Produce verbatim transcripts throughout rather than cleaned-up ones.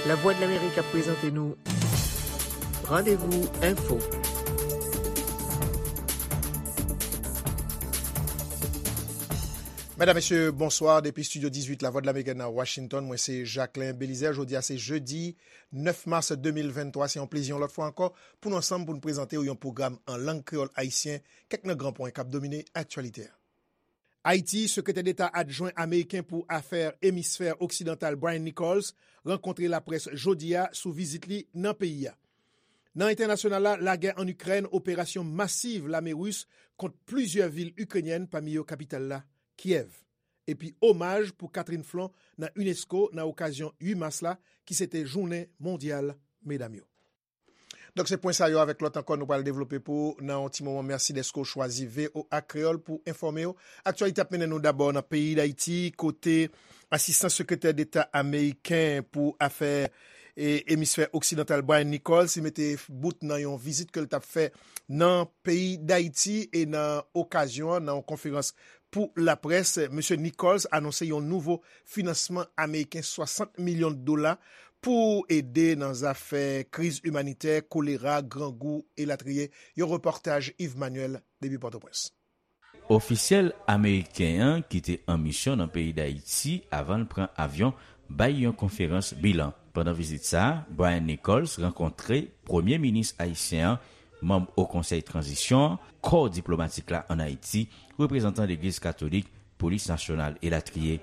Lavwadlamerik ap prezante nou Randevou Enfo. Medam, mesye, bonswa. Depi estidyo dizuit Lavwadlamerik nan Washington, mwen se Jacquelin Belizaire. Jodi a se jedi nèf mas de mil venntwa. Se yon plezi yon lòt fwa ankò pou nou ansanm pou nou prezante w yon pwogram an lang kreyòl ayisyen, kèk nan gran pwen k ap domine aktyalite a. Ayiti, Sekretè Deta Adjwen ameriken pou Afè Emisfè Oksidantal Brian Nichols rankontre laprès jodi a sou vizit li nan peyi a. Nan entènasyonal la, lagè ann Ikrèn, operasyon masiv lame ris kont plizyè vil ikrenyèn, pami yo kapital la, Kyèv. Epi omaj pou Catherine Flon nan unesco nan okazyon uit mas la, ki se te jounen mondyal medam yo. Donk, se pwen sa yo avèk lòt ankò nou pral devlope pou ou nan yon ti moman. Mèsi dèske w chwazi V O A Kreyòl pou enfòme w. Aktyalite ap mennen nou dabò nan peyi Dayiti, kote Asistan Sekretè Deta ameriken pou afè e emisfè oksidantal Brian Nichols, li mete bout nan yon vizit ke l t ap fè nan peyi Dayiti e nan okazyon an, nan yon konferans pou laprès, Mesye Nichols anonse yon nouvo finansman ameriken swasant milyon dola pou ede nan zafè kriz imanitè, kolera, grangou, elatriye. Yon repòtaj Yves Manuel depi Pòtoprens. Ofisyèl ameriken an ki te an misyon nan peyi Dayiti avan l pran avyon bay yon konferans bilan. Pandan vizit sa a, Brian Nichols rankontre Premye Minis ayisyen an, manm Wo Konsèy Tranzisyon an, kò diplomatik la ann Ayiti, reprezantan Legliz Katolik, Polis Nasyonal, elatriye.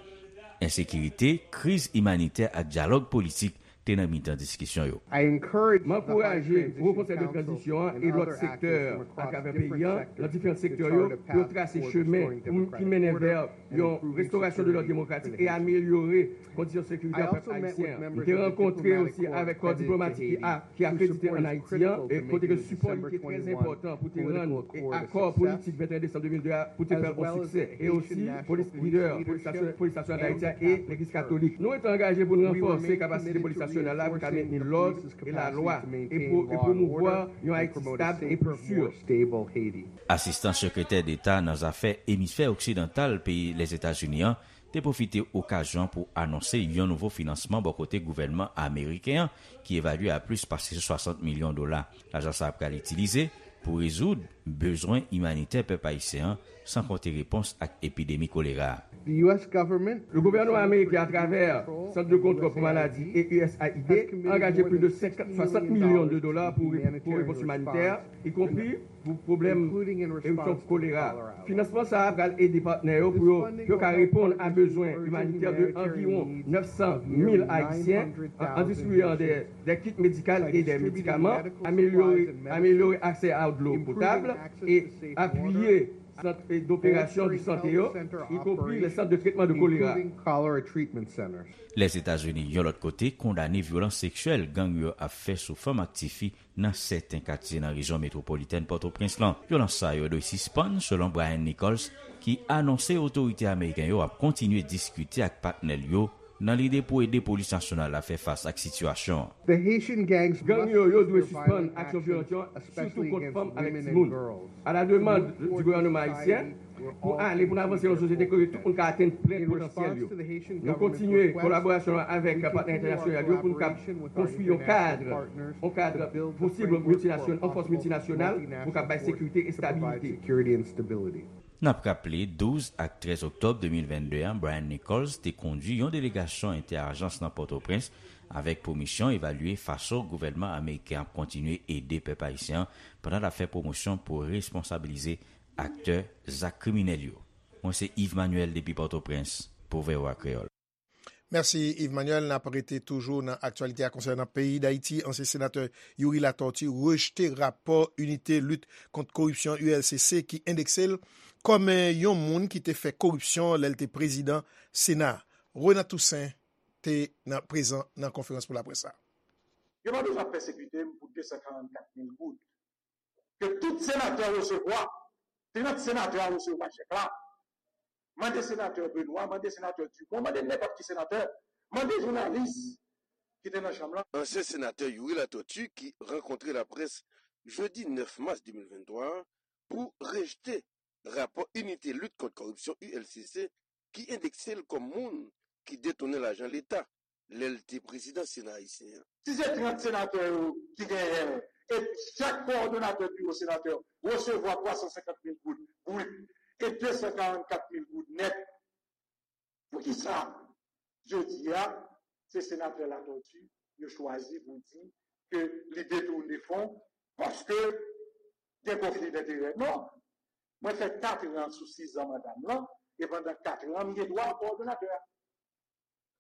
Ensekirite, kriz imanitè ak dyalòg politik te nan mitan diskisyon yo. M ankouraje Wo Konsèy de Tranzisyon an e lòt sektè atravè peyi a, nan diferan sektè yo, pou yo trase chemen pou, ki mennen vè yon restorasyon de lòd demokratik e amelyore kondisyon sekirite a pèp ayisyen an. M te rankontre osi avèk kò diplomatik ki a, ki akredite ann Ayiti an, e kote ke sipò li te trè enpòtan pou te rann e akò politik venteyen desanm de mil de a pou te fè l yon siksè. E osi, polis, lidè polis nasyon-, polis nasyonal Dayiti a e Legliz Katolik. Nou rete angaje pou n ranfòse kapasite polis nasyonal la pou ka mentni lòd e lalwa e pou, e pwomouvwa yon Ayiti stab e pli si. Asistan Sekretè Deta nan zafè emisfè oksidantal peyi Lèzetazini an te pwofite okazyon pou anonse yon nouvo finansman bò kote gouvènman ameriken an, ki evalye a plis pase swasant milyon dola. Lajan sa a pral itilize pou rezoud bezwen imanitè pèp ayisyen an, san konte repons ak epidemi kolera a. Le gouvènman ameriken, atravè Sant de Kontwòl pou Maladi e U S A I D, angaje plis de senkant, swasant milyon de dola pou, pou repons imanitè, ikonpri pou pwoblèm erityon kolera. Finansman sa a pral ede patnè yo pou yo, pou yo ka reponn a bezwen imanitè de anviwon nèf san mil Ayisyen, an, an distribiye de, de kit medikal e de medikaman, amelyore, amelyore aksè a dlo potab e apiye sant, e, doperasyon de sante yo, ikonpri le sant de tretman de kolera. Lèzetazini, yon lòt kote, kondane vyolans seksyèl gang yo ap fè sou fanm ak tifi nan sèten katye nan rejyon metwopolitèn Pòtoprens lan. Vyolans sa yo dwe sispann, selon Brian Nichols, ki anonse otorite ameriken yo ap kontinye diskite ak patnè l yo nan lide pou ede polis nasyonal la fè fas ak sitiyasyon an. Gang yo, yo dwe sispann aksyon vyolans yo, sitou kont fanm avèk timoun. À la demande du gouvernement haïtien, pou ale, pou n avanse nan yon sosyete kote tout moun ka atenn plen potansyèl yo. Nou kontinye kolaborasyon avèk patnè entènasyonal yo pou nou kab konstwi yon kad, yon kad posib miltinasyon-, yon fòs miltinasyonal pou kab bay sekirite e estabilite. N ap raple, douz ak trèz oktòb de mil vennde a, Brian Nichols te kondui yon delegasyon entè-ajans nan Pòtoprens avèk pou misyon evalye fason gouvènman ameriken ap kontinye ede pèp ayisyen an pandan l ap fè pwomosyon pou responsabilize aktè zak kriminèl yo. Mwen se Yves Manuel depi Pòtoprens pou V O A Kreyòl. Mèsi, Yves Manuel. N ap rete toujou nan aktyalite a konsènan peyi Dayiti. Ansyen senatè Youri Latortue rejte rapò Inite Lit Kont Koripsyon, U L C C, ki endekse l kòm, eh, yon moun ki te fè koripsyon lè l te prezidan Sena. Renat Toussaint te nan, prezan nan konferans pou laprès la. Yo pa bezwen ap pèsekite m pou de san karannkat mil goud ke tout senatè resevwa. Trant senatè a resevwa chèk la. Mande senatè Benoît, mande senatè Dumont, mande nenpòt ki senatè, mande jounalis ki te nan chanm lan. Ansyen senatè Youri Latortue ki rankontre laprès jedi nèf mas de mil venntwa a pou rejte rapò Inite Lit Kont Kòripsyon, U L C C, ki endekse l kòm moun ki detounen lajan Leta. lè l te prezidan Sena ayisyen an. Si se trant senatè yo ki genyen l, e chak kowòdonatè biwo senatè resevwa twa san senkant mil goud brit e de san karannkat mil goud nèt, poukisa jodi a se senatè Latortue yo chwazi pou di ke li detounen fon paske gen konfli denterè? Non. Mwen fè kat an sou sis an manda m lan, e pandan kat an, m gen dwa kowòdonatè a.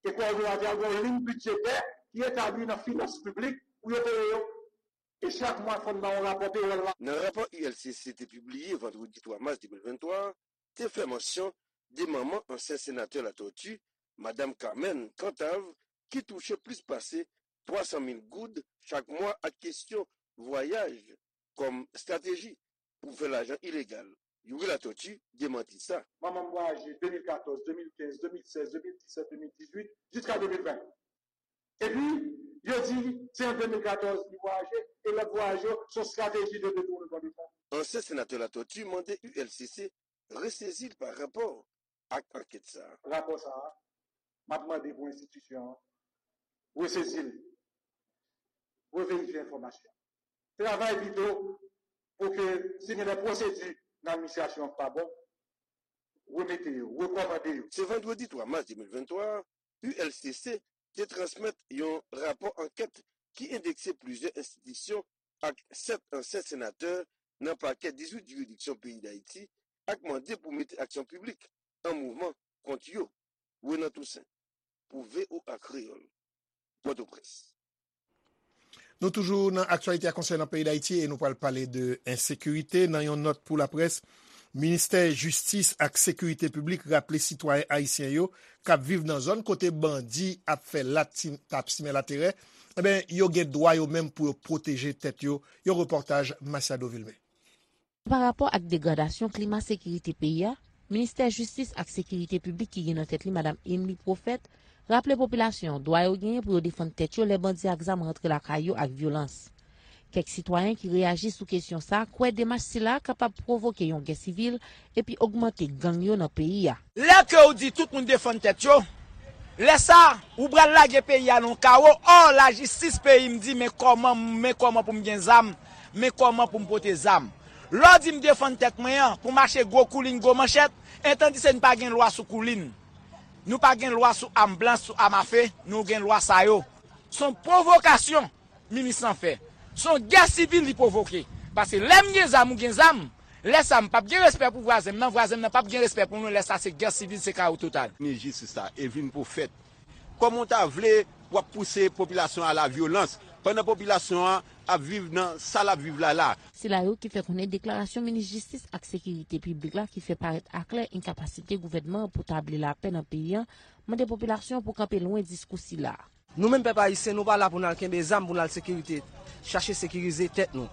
E kowòdonatè a gen yon liy bidjetè ki etabli nan finans piblik pou yo peye yo. E chak mwa, fò n ba yon rapò pewòl la. Nan rapò U L C C te pibliye vandredi twa mas de mil venntwa a, te fè mansyon de manman ansyen senatè Latortue, Madanm Carmen Cantave, ki touche plis pase twa san mil goud chak mwa ak kesyon vwayaj kòm estrateji pou fè lajan ilegal. Youri Latortue demanti sa. Manman m vwayaje de mil katòz, de mil kenz, de mil sèz, de mil disèt, de mil dizuit, jiska de mil ven. Epi, yo di se an de mil katòz li vwayaje, e lòt vwayaj yo se yon estrateji de detounen de fon. Ansyen senatè Latortue mande U L C C resezi l pa rapò ak ankèt sa a. Rapò sa a, m ap mande pou enstitisyon an resezi l, reverifye enfòmasyon. Travay pito pou ke si gen de pwosedi nan administrasyon an k pa bon, remete yo, rekòmande yo. Se vandredi twa mas de mil venntwa a, U L C C te transmèt yon rapò ankèt ki endekse plizyè enstitisyon ak sèt ansyen senatè nan pakè dizuit jiridiksyon peyi Dayiti ak mande pou mete aksyon piblik an mouvman kont yo. Renan Toussaint, pou V O A Kreyòl, Pòtoprens. Nou toujou nan aktyalite a konsènan peyi Dayiti e nou pral pale de ensekirite. Nan yon nòt pou laprès, Ministè Jistis ak Sekirite Piblik raple sitwayen ayisyen yo k ap viv nan zòn kote bandi ap fè lati-, ap simen laterè, enben, yo gen dwa yo menm pou yo pwoteje tèt yo. Yon repòtaj Masiado Vilmé. Pa rapò ak degradasyon klima sekirite peyi a, Ministè Jistis ak Sekirite Piblik ki gen nan tèt li Madanm Emmeline Prophète raple popilasyon an dwa yo genyen pou yo defann tèt yo lè bandi ak zam rantre lakay yo ak vyolans. Kèk sitwayen ki reyaji sou kesyon sa a kwè demach sila a kapab pwovoke yon gè sivil epi ogmante gang yo nan peyi a. Lè ke w di tout moun defann tèt yo, lè sa, ou pral lage peyi a nan yon kawo. Ò, lajistis peyi m di, men kòman, men kòman pou m gen zam, men kòman pou m pote zam. Lè w di m defann tèt mwen an, pou m mache gwo koulin, gwo manchèt, etandise n pa gen lwa sou koulin. Nou pa gen lwa sou am blanch, sou am afe, nou gen lwa sa yo. Se yon pwovokasyon minis lan fè. Se yon gè sivil li pwovoke. Paske lè m gen zam, ou gen zam, lè sa m p ap gen respè pou vwazen m nan, vwazen m nan p ap gen respè pou nou, lè sa se gè sivil, se kawo total. Minis jistis la, Emmeline Prophète, kòman w ta vle w ap pouse popilasyon a la vyolans, pandan popilasyon an ap viv nan sa l ap viv la la? Sila yo ki fè konnen deklarasyon minis jistis ak sekirite piblik la ki fè parèt aklè enkapasite gouvènman an pou tabli lapè nan peyi an, mande popilasyon an pou kanpe lwen diskou sila. Nou menm pèp ayisyen, nou pa la pou n al kenbe zam, pou n al sekirite, chache sekirize tèt nou.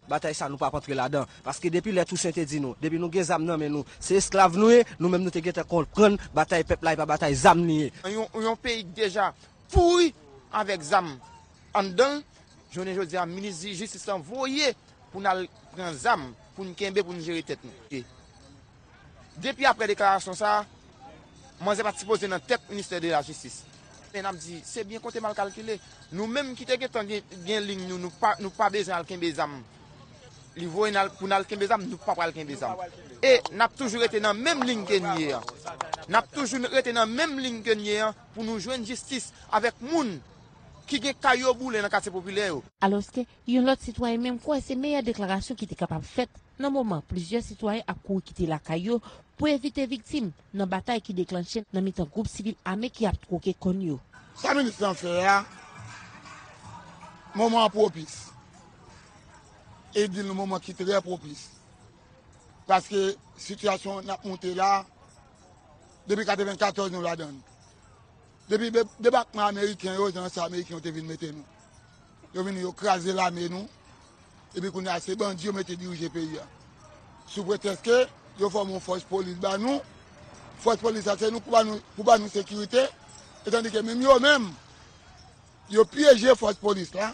Batay sa, nou p ap antre ladan. Paske depi lè Tousen te di nou, depi nou gen zam nan men nou, se esklav nou ye, nou menm nou te gentan konprann batay pèp la, e pa batay zam li ye. Yon, yon peyi k deja pouri avèk zam anndan l, jounen jodi a, minis jistis lan voye pou n al pran zam, pou n kenbe, pou n jere tèt nou. Depi apre deklarasyon sa a, manzè pa t sipoze nan tèt ministè de la jistis. Men n ap di, se byen konte mal kalkile. Nou menm ki te gentan gen, gen liy nou, nou pa, nou pa bezwen al kenbe zam. Li voye n al, pou n al kenbe zam, nou pa pral kenbe zam. E n ap toujou rete nan menm liy ke n ye an. N ap toujou rete nan menm liy ke n ye an pou nou jwenn jistis avèk moun ki gen kay yo boule nan katye popilè yo. Alòske, yon lòt sitwayen menm kwè se meyè deklarasyon ki te kapab fèt nan moman plizyè sitwayen ap kouri kite lakay yo pou evite viktim nan batay ki deklanche nan mitan gwoup sivil ame ki ap twoke kòn yo. Sa minis lan fè a, moman an pwopis. E di l yon moman ki trè pwopis. Paske sitiyasyon n ap monte la, depi katrevennkatòz nou ladan l. Depi de-, debakman ameriken yo, jan sa ameriken yo te vin mete nou. Yo vini, yo kraze lame nou. Epi kounye a, se bandi yo mete dirije peyi a. Sou pretèks ke yo fòme yon fòs polis ba nou. Fòs polis la, se nou pou ba nou, pou ba nou sekirite. Etandike menm yo menm, yo pyeje fòs polis la.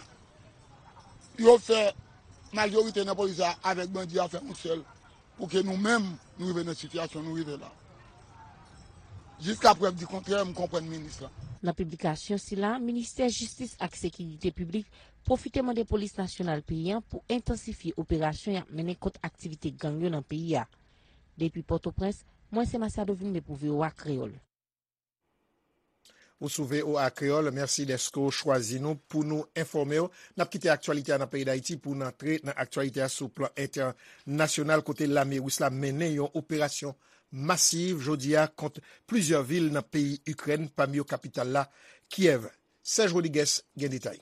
Yo fè majorite nan polis la avèk bandi a fè yon sèl. Pou ke nou menm, nou rive nan sitiyasyon nou rive la. Jiska prèv di kontrè, m konprann minis lan. Nan piblikasyon sila, Ministè Jistis ak Sekirite Piblik pwofite mande Polis Nasyonal peyi a pou entansifye operasyon y ap mennen kont aktivite gang yo nan peyi a. Depi Pòtoprens, mwen se Masiado Vilmé pou V O A Kreyòl. Ou sou V O A Kreyòl, mèsi dèske w chwazi nou pou nou enfòme w. N ap kite aktyalite a nan peyi Dayiti pou n antre nan aktyalite a sou plan entènasyonal, kote lame ris la mennen yon operasyon masiv jodi a kont plizyè vil nan peyi Ikrèn, pami yo kapital la, Kyèv. Serge Rodriguez gen detay.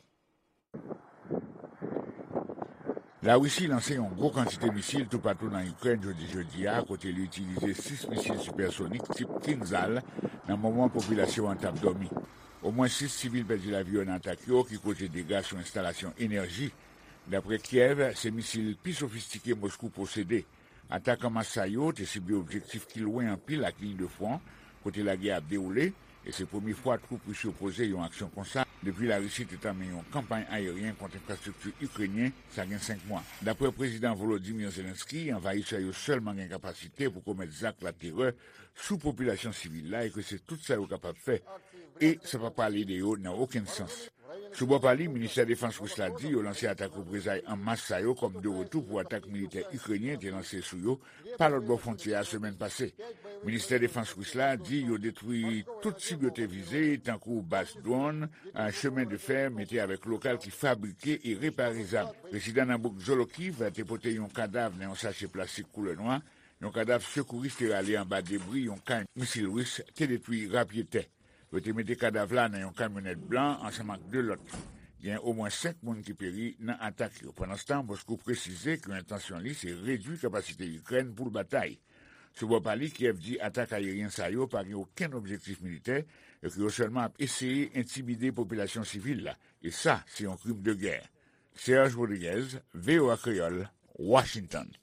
Larisi lanse yon gwo kantite misil toupatou nan Ikrèn jodi jedi a, kote li itilize sis misil sipèsonik tip Kinzhal nan moman popilasyon an t ap dòmi. Omwen sis sivil pèdi lavi yo nan atak yo, ki koze dega sou enstalasyon enèji. Dapre Kyèv, se misil pi sofistike Moskou posede. Atak an mas sa yo te sible objektif ki lwen anpil ak liy de fwon, kote lagè ap dewoule, e se premye fwa twoup ris yo poze yon aksyon konsa depi Larisi te tanmen yon kanpay ayeryen kont enfrastrikti ikrenyen, sa gen senk mwa. Dapre Prezidan Volodymyr Zelensky, anvayisè yo sèlman gen kapasite pou komèt zak laterè sou popilasyon sivil la e ke se tout sa yo kapab fè, e sa pa pral ede yo nan okenn sans. Sou bò pa li, Ministè Defans ris la di yo lanse atak reprezay an mas sa yo kòm de retou pou atak militè ikrenyen te lanse sou yo pa lòt bò fwontyè a semèn pase. Ministè Defans ris la di yo detwi tout sib yo te vize, tankou baz dwòn, chemen de fè, mete avèk lokal ki fabrike e repare zam. Rezidan nan bouk Zolokiv te pote yon kadav nan yon sache plastik koulè nwa, yon kadav sekouris te rale anba debri yon kay misil ris te detwi rapyetè. Yo te mete kadav la nan yon kamyonèt blan ansanm ak de lòt. Gen omwen senk moun ki peri nan atak yo. Pandanstan, Moskou presize ke entansyon li se redui kapasite Ikrèn pou l batay. Sou bò pa li, Kyèv di atak ayeryen sa yo pa gen okenn objektif militè e ke yo sèlman ap eseye entimide popilasyon sivil la, e sa se yon krim de gè. Serge Rodriguez, V O A Kreyòl, Washington.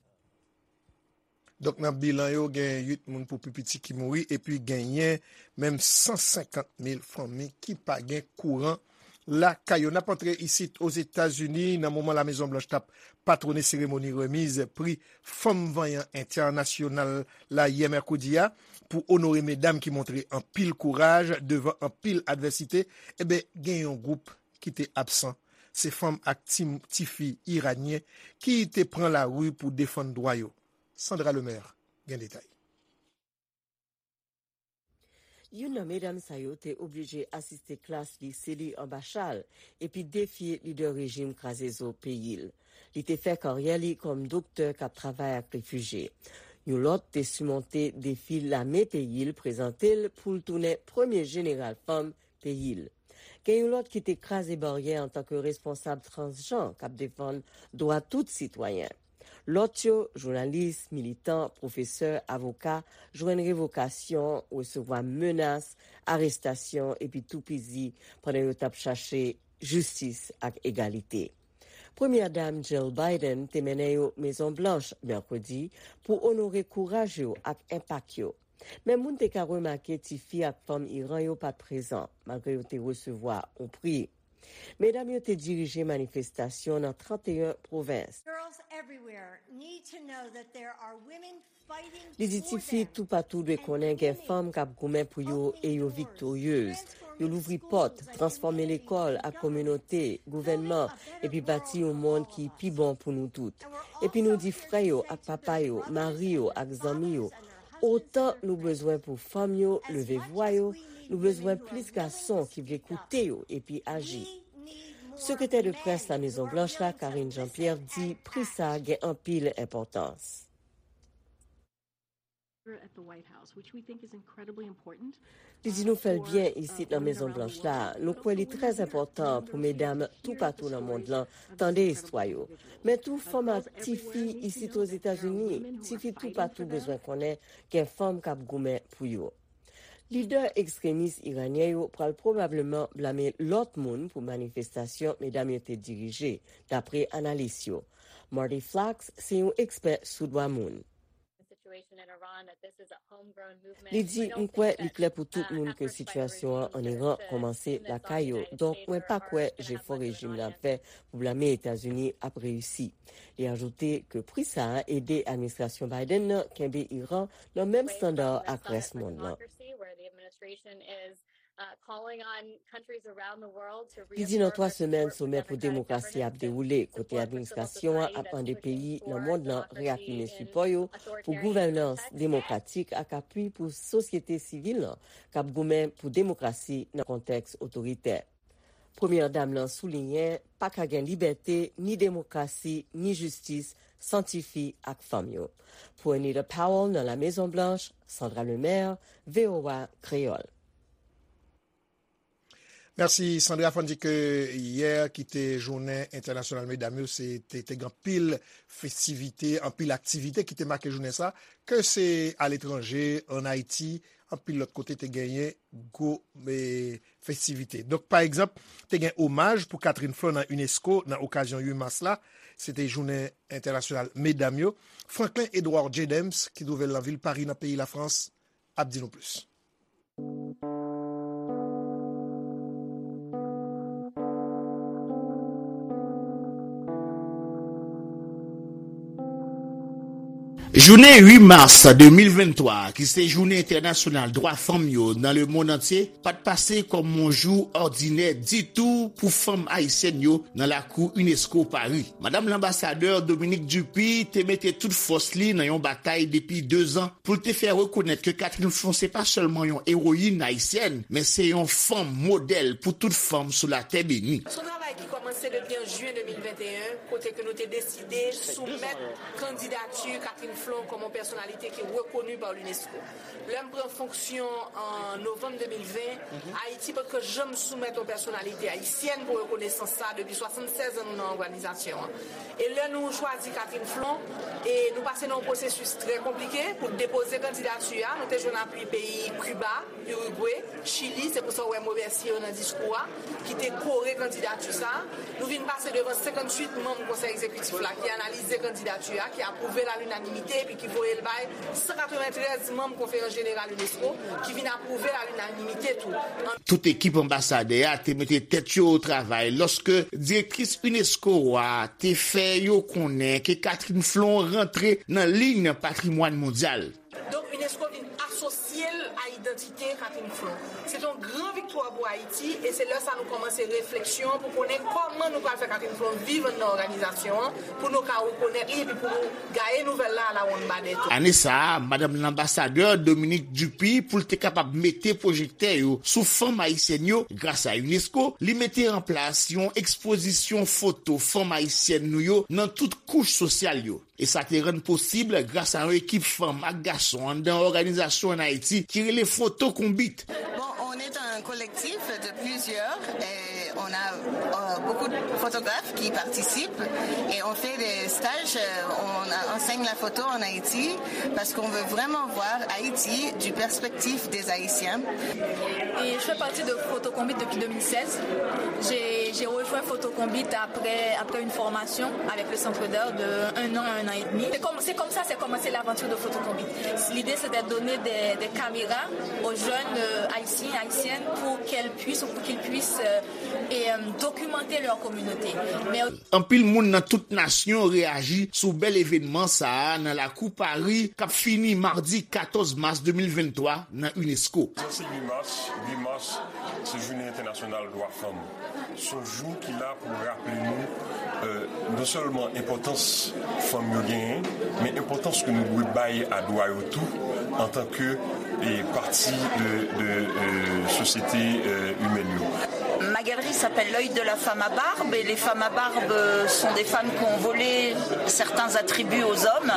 Donk, nan bilan yo, gen uit moun pou pi piti ki mouri, epi genyen menm san senkant mil fanmi ki pa gen kouran lakay yo. N ap antre isit Ozetazini nan moman Lamezon Blanch t ap patwone seremoni remiz pri Fanm Vanyan Entènasyonal la yè mèkredi a pou onore medam ki montre anpil kouraj devan anpil advèsite. Enben, gen yon gwoup ki te absan. Se fanm ak ti, tifi iranyen ki te pran lari pou defann dwa yo. Sandra Lemaire gen detay. Youn nan medam sa yo te oblije asiste klas lise li anba chal epi defye lidè rejim kraze zo peyi l. Li te fè karyè li kòm doktè k ap travay ak refijye. Yon lòt te simonte defi lame peyi l prezante l pou l tounen premye jeneral fanm peyi l. Gen yon lòt ki te kraze baryè antanke responsab transjan k ap defann dwa tout sitwayen. Lòt yo, jounalis, militan, pwofesè, avoka, jwenn revokasyon, resevwa menas, arestasyon epi toupizi pandan yo t ap chache jistis ak egalite. Premyè Dam Jill Biden te mennen yo Mezon Blanch mèkredi pou onore kouraj yo ak enpak yo. Men moun te ka remake tifi ak fanm Iran yo pa t prezan, malgre yo te resevwa yon pri. Medam yo te dirije manifestasyon nan trannteyen pwovens. Li di tifi toupatou dwe konnen gen fanm k ap goumen pou yo e yo viktoryez. Yo louvri pòt, transfòme lekòl ak kominote, gouvènman, epi bati yon mond ki pi bon pou nou tout. Epi nou di frè yo ak papa yo, mari yo ak zanmi yo, otan nou bezwen pou fanm yo leve vwa yo, nou bezwen plis gason ki vle koute yo epi aji. Sekretè de près Lamezon Blanch la, Karine Jean-Pierre, di pri sa a gen anpil enpòtans. Li di nou fè l byen isit nan Mezon Blanch la. Nou kwè li trè enpòtan pou medam toupatou nan mond lan tande istwa yo. Men tou fanm ak tifi isit Ozetazini, tifi toupatou bezwen konnen gen fanm k ap goumen pou yo. Lidè ekstremis iranyen yo pral pwobableman blame lòt moun pou manifestasyon medam yo te dirije, dapre analis yo. Marty Flacks se yon ekspè sou dwa moun. Li di, m kwè li klè pou tout moun ke sitiyasyon an ann Iran kòmanse lakay yo, donk mwen pa kwè jefò rejim nan ap fè pou blame Etazini ap reyisi. Li ajoute ke pri sa a ede administrasyon Biden nan kenbe Iran nan menm estanda ak rès mond lan. Li di nan twa semèn, somè pou demokrasi ap dewoule, kote administrasyon an ap mande peyi nan mond lan reyafime sipò yo pou gouvènans demokratik ak apui pou sosyete sivil lan k ap goumen pou demokrasi nan kontèks otoritè. Premyè Dam lan souliyen pa ka gen libète, ni demokrasi, ni jistis san tifi ak fanm yo. Pou Anita Powell nan La Mezon Blanch, Sandra Lemaire, V O A Kreyòl. Mèsi Sandra. Fò n di ke yè ki te jounen entènasyonal medam yo, se te te gen anpil festivite, anpil aktivite ki te make jounen sa, ke se aletranje, ann Ayiti, anpil lòt kote te genyen gwo e, festivite. Donk pa egzanp, te gen omaj pou Catherine Flon nan unesco nan okazyon uit mas la. Se te jounen entènasyonal medam yo. Franklin Edouard Jadems, ki twouve l nan vil Pari nan peyi Lafrans, ap di nou plis. Jounen uit mas de mil venntwa, ki se Jounen Entènasyonal Dwa Fanm yo nan lemonn antye, pa t pase kòm yon jou òdinè ditou pou fanm ayisyèn yo nan lakou unesco Pari. Madanm Lanbasadè Dominique Dupuy te mete tout fòs li nan yon batay depi dezan pou l te fè rekonèt ke Catherine Flon se pa sèlman yon ewoyin ayisyèn, men se yon fanm modèl pou tout fanm sou latè beni. Se yon travay ki kòmanse depi an jen de mil venteyen, kote ke nou te deside soumèt kandidati Catherine Flon kòm yon pèsonalite ki rekoni pa l'unesco. Lè m pran fonksyon an novanm de mil ven, Ayiti potko janm soumèt yon pèsonalite ayisyèn pou rekonesans sa depi swasannsèz an nou nan òganizasyon an. E lè nou chwazi Catherine Flon, e nou pase nan yon pwosesis trè konplike pou depoze kandidati a. Nou te jwenn apui peyi Kiba, Irigwe, Chili, se pou sa w wè m remèsye yo nan diskou a, ki te kore kandidati sa. Nou vin pase devan senkantuit manm konsèy egzekitif la ki analize kandidati a, ki apwouve l a linanimite, epi ki voye l bay san katreventrèz manm konferans jeneral unesco, ki vin apwouve l a linanimite tou. Tout ekip anbasadè a te mete tèt yo o travay lòske direktris unesco a te fè yo konnen ke Catherine Flon rantre nan liy patrimwàn mondyal. Donk unesco vin asosye l a idantite Catherine Flon. Se te yon gran viktwa pou Ayiti e se lè sa nou kòmanse refleksyon pou konnen kòman nou pral fè Catherine Flon viv anndan òganizasyon an pou nou ka rekonèt li epi pou nou gaye nouvèl la a la wonn badè tou. Ane sa a, madanm lanbasadè Dominique Dupuy, pou l te kapab mete pwojektè yo sou fanm ayisyèn yo gras a unesco, li mete an plas yon ekspozisyon foto fanm ayisyèn nou yo nan tout kouch sosyal yo. E sa te rann posib gras a yon ekip fanm ak gason anndan òganizasyon ann Ayiti ki rele Foto Konbit. Bon, on est un collectif de plusieurs et on a euh, beaucoup de photographes qui participent et on fait des stages, euh, on enseigne la photo en Haïti parce qu'on veut vraiment voir Haïti du perspective des Haïtiens. Et je fais partie de Foto Konbit depuis deux mille seize. J'ai rejoint Foto Konbit après, après une formation avec le Centre d'Art de un an à un an et demi. C'est comme, c'est comme ça c'est commencé l'aventure de Foto Konbit. L'idée c'est de donner des, des caméras aux jeunes euh, haïtiens, haïtiennes pour qu'elles puissent ou pour qu'ils puissent euh, et, euh, documenter leur communauté. Mais Anpil moun nan tout nasyon reyaji sou bèl evènman sa a nan lakou Pari k ap fini madi katòz mas de mil venntwa nan unesco. Sa se uit mas, uit mas se jounen entènasyonal dwa fanm. Se yon jou ki la pou raple nou non sèlman enpòtans fanm yo genyen, men enpòtans ke nou dwe bay a dwa yo tou antanke pati de, de sosyete imèn yo. Ma galerie s'appelle L'œil de la femme à barbe et les femmes à barbe sont des femmes qui ont volé certains attributs aux hommes.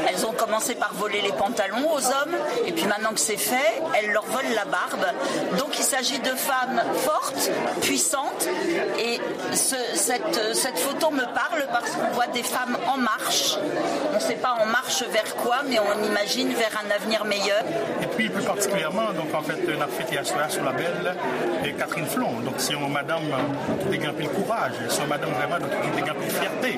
Elles ont commencé par voler les pantalons aux hommes et puis maintenant que c'est fait, elles leur volent la barbe. Donc il s'agit de femmes fortes, puissantes et ce, cette, cette photo me parle parce qu'on voit des femmes en marche. On ne sait pas en marche vers quoi, mais on imagine vers un avenir meilleur. Et puis plus particulièrement, donc en fait, n ap fete aswè a sou labèl Catherine Flon. Donk se yon madanm ki te gen anpil kouraj, se yon madanm vrèman donk ki te gen anpil fyète.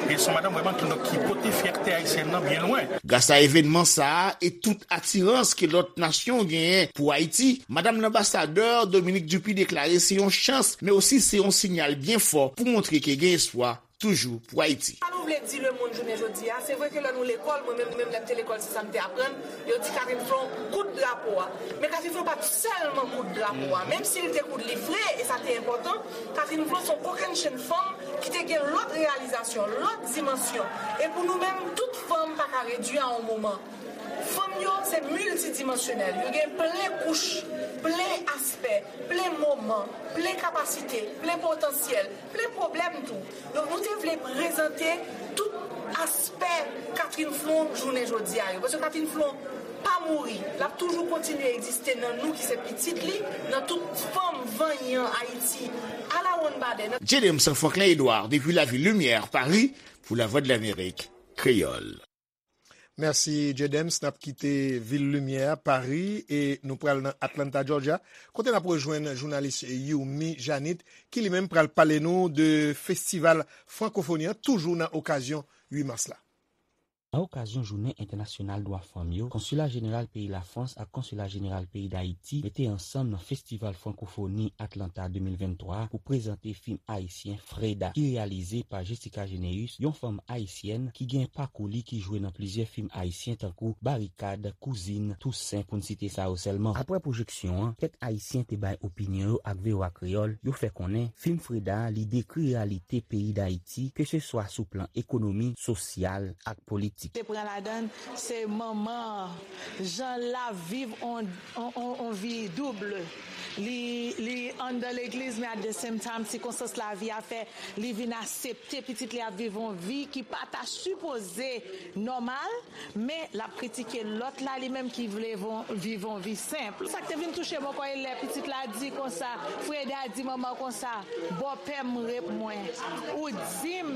E se yon madanm vrèman ki, donk, ki pote fyète ayisyèn nan byen lwen. Gras a evènman sa a e tout atirans ke lòt nasyon genyen pou Ayiti, madanm lanbasadè Dominique Dupuy deklare se yon chans, men osi se yon siyal byen fò pou montre ke gen espwa toujou pou Ayiti. Sa nou vle di lemonn jounen jodi a, se vre ke lè nou lekòl, mwen menm, menm lè m te lekòl, se sa m te aprann, yo di Catherine Flon koud drapo a. Men Catherine Flon pa t sèlman koud drapo a, menm si l te koud li vre, e sa te enpòtan, Catherine Flon se yon kokennchenn fanm ki te gen lòt reyalizasyon, lòt dimansyon. E pou nou menm, tout fanm pa ka redui a yon moman. Fanm yo se miltidimansyonèl, yo gen plen kouch, plen aspè, plen moman, plen kapasite, plen potansyèl, plen pwoblèm tou. Donk nou te vle prezante tout aspè Catherine Flon jounen jodi a yo. Paske Catherine Flon pa mouri, l ap toujou kontinye egziste nan nou ki se pitit li, nan tout fanm vanyan Ayiti, alawonnbadè, nan J D M Franklin Edouard, depi lavil Limyè, Pari, pou Lavwadlamerik Kreyòl. Mèsi, J D M. N ap kite vil limyè a, Pari, e nou pral nan Atlanta, Georgia, kote n ap rejwenn jounalis Youmi Janit, ki li menm pral pale nou de festival frankofoni an, toujou nan okazyon uit mas la. Nan okazyon Jounen Entènasyonal Dwa Fanm yo, Konsila Jeneral peyi Lafrans ak Konsila Jeneral peyi Dayiti mete ansanm nan Festival Frankofoni Atlanta de mil venntwa pou prezante fim ayisyen Freda, ki reyalize pa Jessica Généus, yon fanm ayisyèn ki gen pakou li ki jwe nan plizyè fim ayisyen tankou Barikad, Kouzin, Tousen, pou n site sa yo sèlman. Apre pwojeksyon an, kèk Ayisyen te bay opinyon yo ak V O A Kreyòl, yo fè konnen fim Freda a, li dekri reyalite peyi Dayiti, keseswa sou plan ekonomi, sosyal ak politik. Te pran ladan l, se manman an, jan l ap viv on, on, on, on vi doub. Li, li anndan legliz, men at the same time, sikonstans lavi a fè li vin aksepte pitit li ap viv on vi ki pa ta sipoze nòmal, men l ap kritike lòt la, li menm ki vle von, viv on vi senp. Sa k te vin touche m ankò, e lè pitit la di konsa, Freda di manman konsa, bòpè m rep mwen. Ou di m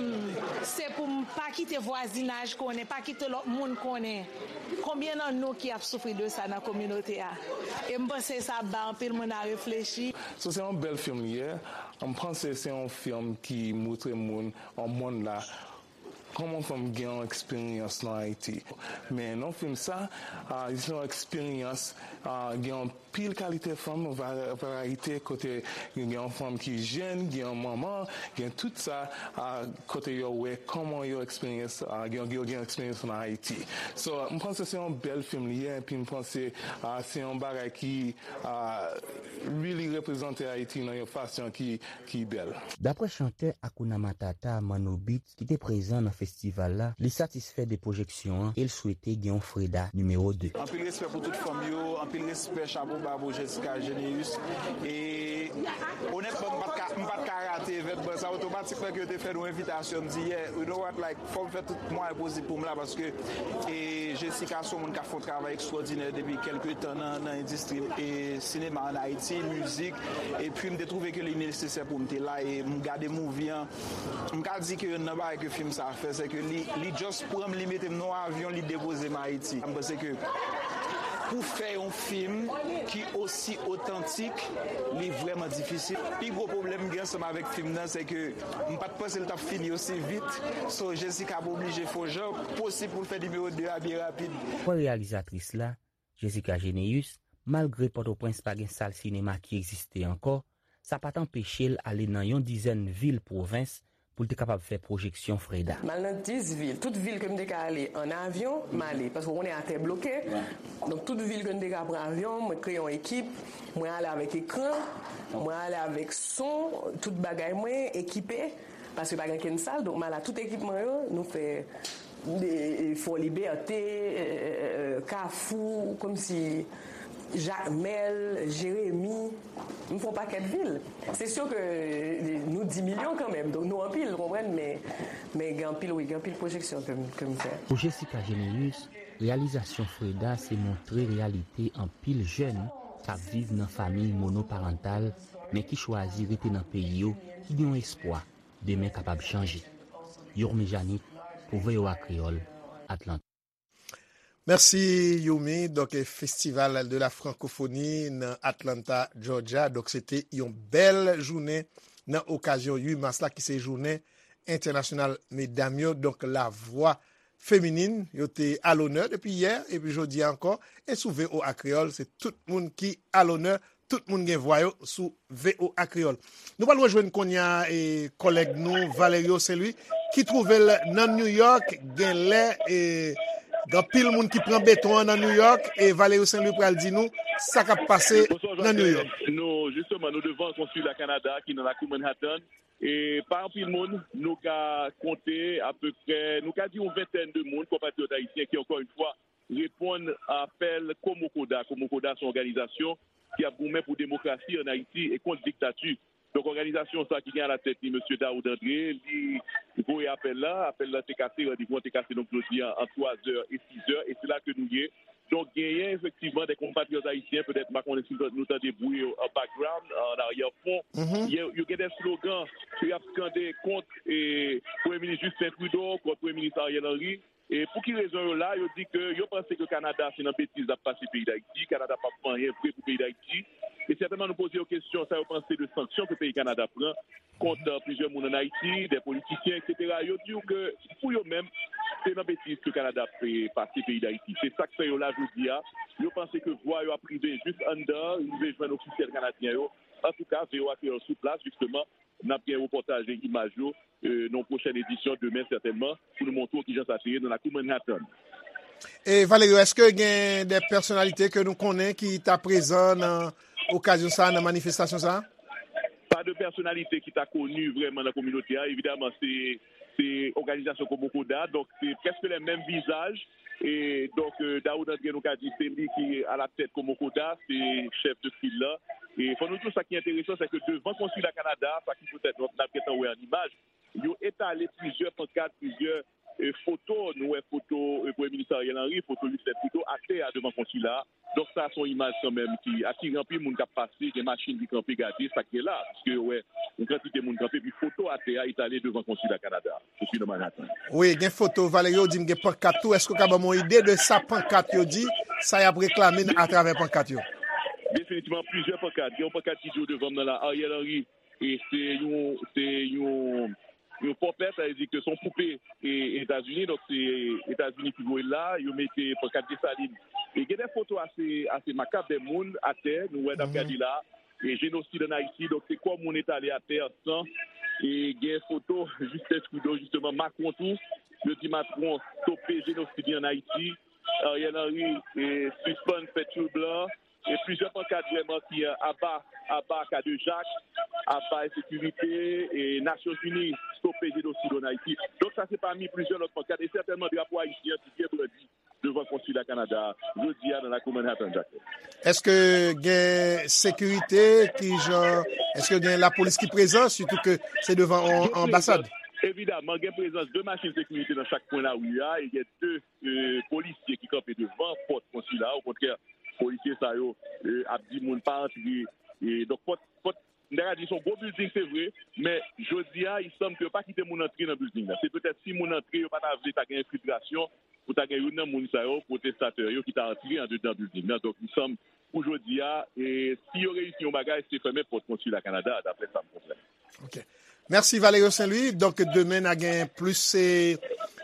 se pou m pa kite vwazinaj konnen, pa kite lòt moun konnen. Konbyen nan nou ki ap soufri de sa nan kominote a? E m panse sa ap bay anpil moun a reflechi. So, se yon bèl fim li ye. M panse se yon fim ki montre moun, yon monn la, kòman fanm gen yon eksperyans nan Ayiti. Men nan fim sa, a, se yon eksperyans, a, gen yon pil kalite fanm, va-, varayite, kote gen yon fanm ki jèn, gen yon manman, gen tout sa, a, kote yo wè kòman yo eksperyans, a, gen, yo gen eksperyans nan Ayiti. So, m panse se yon bèl fim li ye, epi m panse, a, se yon bagay ki, a, really reprezante Ayiti nan yon fason ki, ki bèl. Daprè chantè Hakuna Matata, Manno Beats, ki te prezan nan festival la, li satisfè de pwojeksyon an e l swete gen yon Freda nimewo de. Anpil respè pou tout fanm yo, anpil respè, chapo ba pou Jessica Généus. E onètman, m pa t ka, m pa t ka rate evènman sa, otomatikman ke yo te fè nou envitasyon, m di, yeah, you know what, like, fò m fè tout mwayen posib pou m la, paske, e, Jessica se yon moun k ap fè yon travay ekstwòdinè depi kèlke tan nan, nan endistri, e, sinema ann Ayiti, mizik, epi m te twouve ke li nesesè pou m te la, e m gade movie an, m ka di ke youn nan bagay ke fim sa a fè, se ke li, li just pran m, li mete m nan yon avyon, li depoze m Ayiti. M panse ke pou fè yon fim ki osi otantik, li vrèman difisil. Pi gwo pwoblèm m gen ansanm avèk fim nan, se ke m pa t panse l t ap fini osi vit. So, Jessica ap oblije fè yon jan posib pou l fè nimewo de a byen rapid. Daprè reyalizatris la, Jessica Généus, malgre Pòtoprens pa gen sal sinema ki egziste ankò, sa pa t anpeche l ale nan yon dizèn vil pwovens pou l te kapab fè pwojeksyon Freda. M al nan dis vil. Tout vil ke m te ka ale ann avyon, m ale. Paske w konnen atè bloke. Donk, tout vil ke m te ka pran avyon, mwen kreye yon ekip. Mwen ale avèk ekran, mwen ale avèk son, tout bagay mwen ekipe. Paske pa gen kenn sal, donk m al ak tout ekipman yo, nou fè de, e, Fò Libète, e, e, e, Kafou, kòmsi Jakmèl, Jeremi, m fè yon pakèt vil. Se si ke, e, nou dis milyon kanmenm, donk nou anpil, ou konprann, men, men gen anpil, wi, gen anpil pwojeksyon ke m, ke m fè. Pou Jessica Généus, reyalizasyon Freda se montre reyalite anpil jèn k ap viv nan fanmi monoparantal, men ki chwazi rete nan peyi yo, ki gen yon espwa demen kapab chanje. Yourmi Janit, pou V O A Kreyòl, Atlanta. Mèsi, Yourmi. Donk, e, Festival de la Francophonie nan Atlanta, Georgia. Donk, se te yon bèl jounen nan okazyon uit mas la, ki se jounen entènasyonal medam yo. Donk, lavwa feminin yo te alonè depi yè, epi jodi a ankò. E sou V O A Kreyòl, se tout moun ki alonè tout moun gen vwa yo sou V O A Kreyòl. Nou pral rejwenn kounye a e, kòlèg nou Valerio Saint-Louis ki twouve l nan New York. Genlè e, gen anpil moun ki pran beton an nan New York e Valerio Saint-Louis pral di nou sa k ap pase nan New York. Bonsoir Jacqueline. Nou, jisteman, nou devan konsila Kanada ki nan lakou Manhattan. E pa anpil moun, nou ka konte apeprè, nou ka di yon ventèn de moun, konpatriyòt ayisyen ki, ankò yon fwa, reponn apèl Komokoda. Komokoda se yon òganizasyon ki ap goumen pou demokrasi ann Ayiti e kont diktati. Donk, òganizasyon sa ki gen alatèt li, mesye Daoud André, li voye apèl la. Apèl la te kase, randevou an te kase, donk, jodi a, ant twa zè e sis zè, e se la ke nou ye. Donk, genyen efektivman de konpatriyòt ayisyen, petèt, m pa konnen si nou tande bri yo an background, an aryè fon. Yo, yo gen de slogan ke y ap skande kont e, Premye Minis Justin Trudeau, kont Premye Minis Ariel Henry. E pou ki rezon yo la? Yo di ke yo panse ke Kanada se nan betiz l ap pase peyi Dayiti. Kanada p ap fè anyen vre pou peyi Dayiti. E sètènman, nou poze yo kesyon sa yo panse de sanksyon ke peyi Kanada pran kont, euh, plizyè moun ann Ayiti, de politisyen, etsetera. Yo di w ke pou yo menm, se nan betiz ke Kanada ap, eh, pase peyi Dayiti. Se sa k fè yo la jodi a. Yo panse ke vwa yo ap rive jis anndan, rive jwenn ofisyèl kanadyen yo. Antouka, V O A Kreyòl sou plas, jisteman, n ap gen repòtaj e imaj yo, eh, nan yon pwochèn edisyon demen sètènman, pou nou montre w kijan sa te ye nan lakou Manhattan. E Valerio, èske gen de pèsonalite ke nou konnen ki ta prezan nan okazyon sa a, nan manifestasyon sa a? Pa de pèsonalite ki ta koni vrèman nan kominote a. Evidaman, se, se òganizasyon Komokoda, donk se prèske le menm vizaj. E donk, eh, Daoud André, nou ka di, se li ki alatèt Komokoda, se chèf de fil la. E fò nou di w sa ki enteresan, se ke devan konsila Kanada, sa ki poutèt nou, n ap gentan wè an imaj, yo etale plizyè pankat, plizyè, eh, foto. Nou wè foto, eh, Premye Minis Ariel Henry, foto Justin Trudeau atè a devan konsila a. Donk, sa se yon imaj kanmenm ki atire anpil moun k ap pase, gen machin ki kanpe gade sa k gen la, piske yo wè yon kantite moun kanpe, epi foto atè a etale devan konsila Kanada a, sou nan Manhattan. Wi, gen foto, Valerio, di m gen pankat tou. Èske w ka ban m yon ide de sa pankat yo di, sa y ap reklame atravè pankat yo? Definitivman, plizyè pankat. Gen yon pankat ki di w devan m nan la, Ariel Henry, e se yon, se yon, yon pòpè, sa vle di ke se yon poupe e, Etazini, donk se Etazini ki voye l la, yo mete pankat Desalin. E gen de foto ase, ase makab, de moun atè, nou wè n ap gade la, e jenosid ann Ayiti, donk se kò moun etale atè an san, e gen foto Justin Trudeau, jisteman, Macron tou, yo di Macron stope jenosid li ann Ayiti, Ariel Henry, e sispann fè tchoul blan, e plizyè pankat vrèman ki, eh, aba, aba Kadejak, aba ensekirite, e Nasyonzini stope jenosid ann Ayiti. Donk sa se pami plizyè lòt pankat, e sètènman drapo ayisyen an ki byen brandi devan konsila Kanada a jodi a nan lakou Manhattan, Jacques. Èske gen sekirite ki jan, èske gen lapolis ki prezan, sitou ke se devan yon anbasad? Evidaman, gen prezans de machin sekirite nan chak kwen lari a, e gen de, eh, polisye ki kanpe devan pòt konsila a. Okontrè, polisye sa yo, eh, ap di moun pa antre. E donk, pòt, pòt, m ta ka di se yon gwo bilding, se vre, men jodi a, il semble ke yo pa kite moun antre nan bilding nan. Se petèt si moun antre, yo pa ta vle ta gen enfiltrasyon, pou ta gen youn nan moun sa yo, pwotestatè yo, ki ta antre andedan bilding nan. Donk, il semble, pou jodi a, e si yo reyisi yon bagay, se fèmen pòt konsila Kanada a, daprè sa m konprann. Ok. Mèsi, Valerio Saint-Louis. Donk, demen, n a gen plis, e,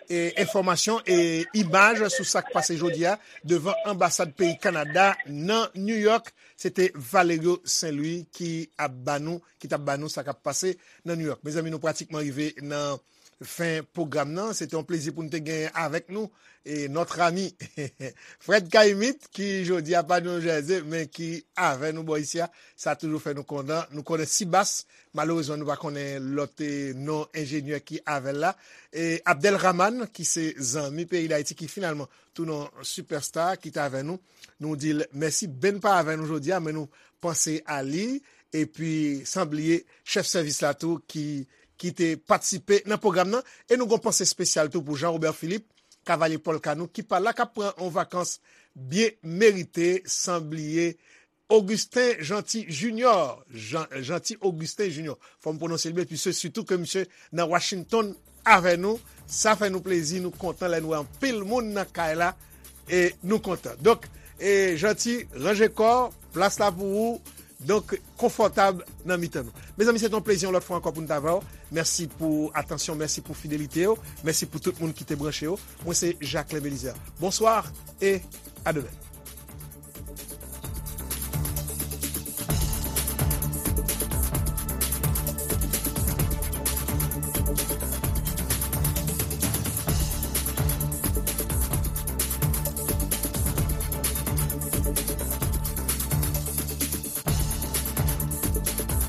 e, enfòmasyon e imaj sou sa k pase jodi a devan anbasad peyi Kanada nan New York. Se te Valerio Saint-Louis ki ap ba nou, ki t ap ba nou sa k ap pase nan New York. Mezanmi, nou pratikman rive nan fen pwogram nan. Se te yon plezi pou n te genyen avèk nou e notre ami Fred Caïmite, ki jodi a pa New Jersey, men ki avè nou bò isi a. Sa toujou fè nou kontan. Nou konnen Sibas, malerezman, nou pa konnen lòt, e, non enjenyè ki avè l la. E Abdel Rahman, ki se zanmi peyi Dayiti, ki finalman tounen yon sipèsta, ki t avè nou. Nou di l mèsi. Ben pa avè nou jodi a, men nou panse a li. Epi, san bliye, chèf sèvis la tou, ki, ki te patisipe nan pwogram nan. E nou gon panse espesyal tou pou Jean Robert Philippe, Kavalye Pòl Kanou, ki pa la, k ap pran yon vakans byen merite, san bliye Augustin Jeanty Junior. Jean, Jeanty Augustin Junior. Fò m pwononse l byen, piske sitou ke misye nan Washington avè nou. Sa fè nou plezi, nou kontan lè n wè anpil moun nan kay la, e nou kontan. Donk, e Jeanty, ranje kò, plas la pou ou. Donk, konfòtab nan mitan nou. Mezanmi, se te yon plezi yon lòt fwa ankò pou n t avè w. Mèsi pou atansyon, mèsi pou fidelite w, mèsi pou tout moun ki te branche yo. Mwen se Jacquelin Belizaire. Bonswa e a demen.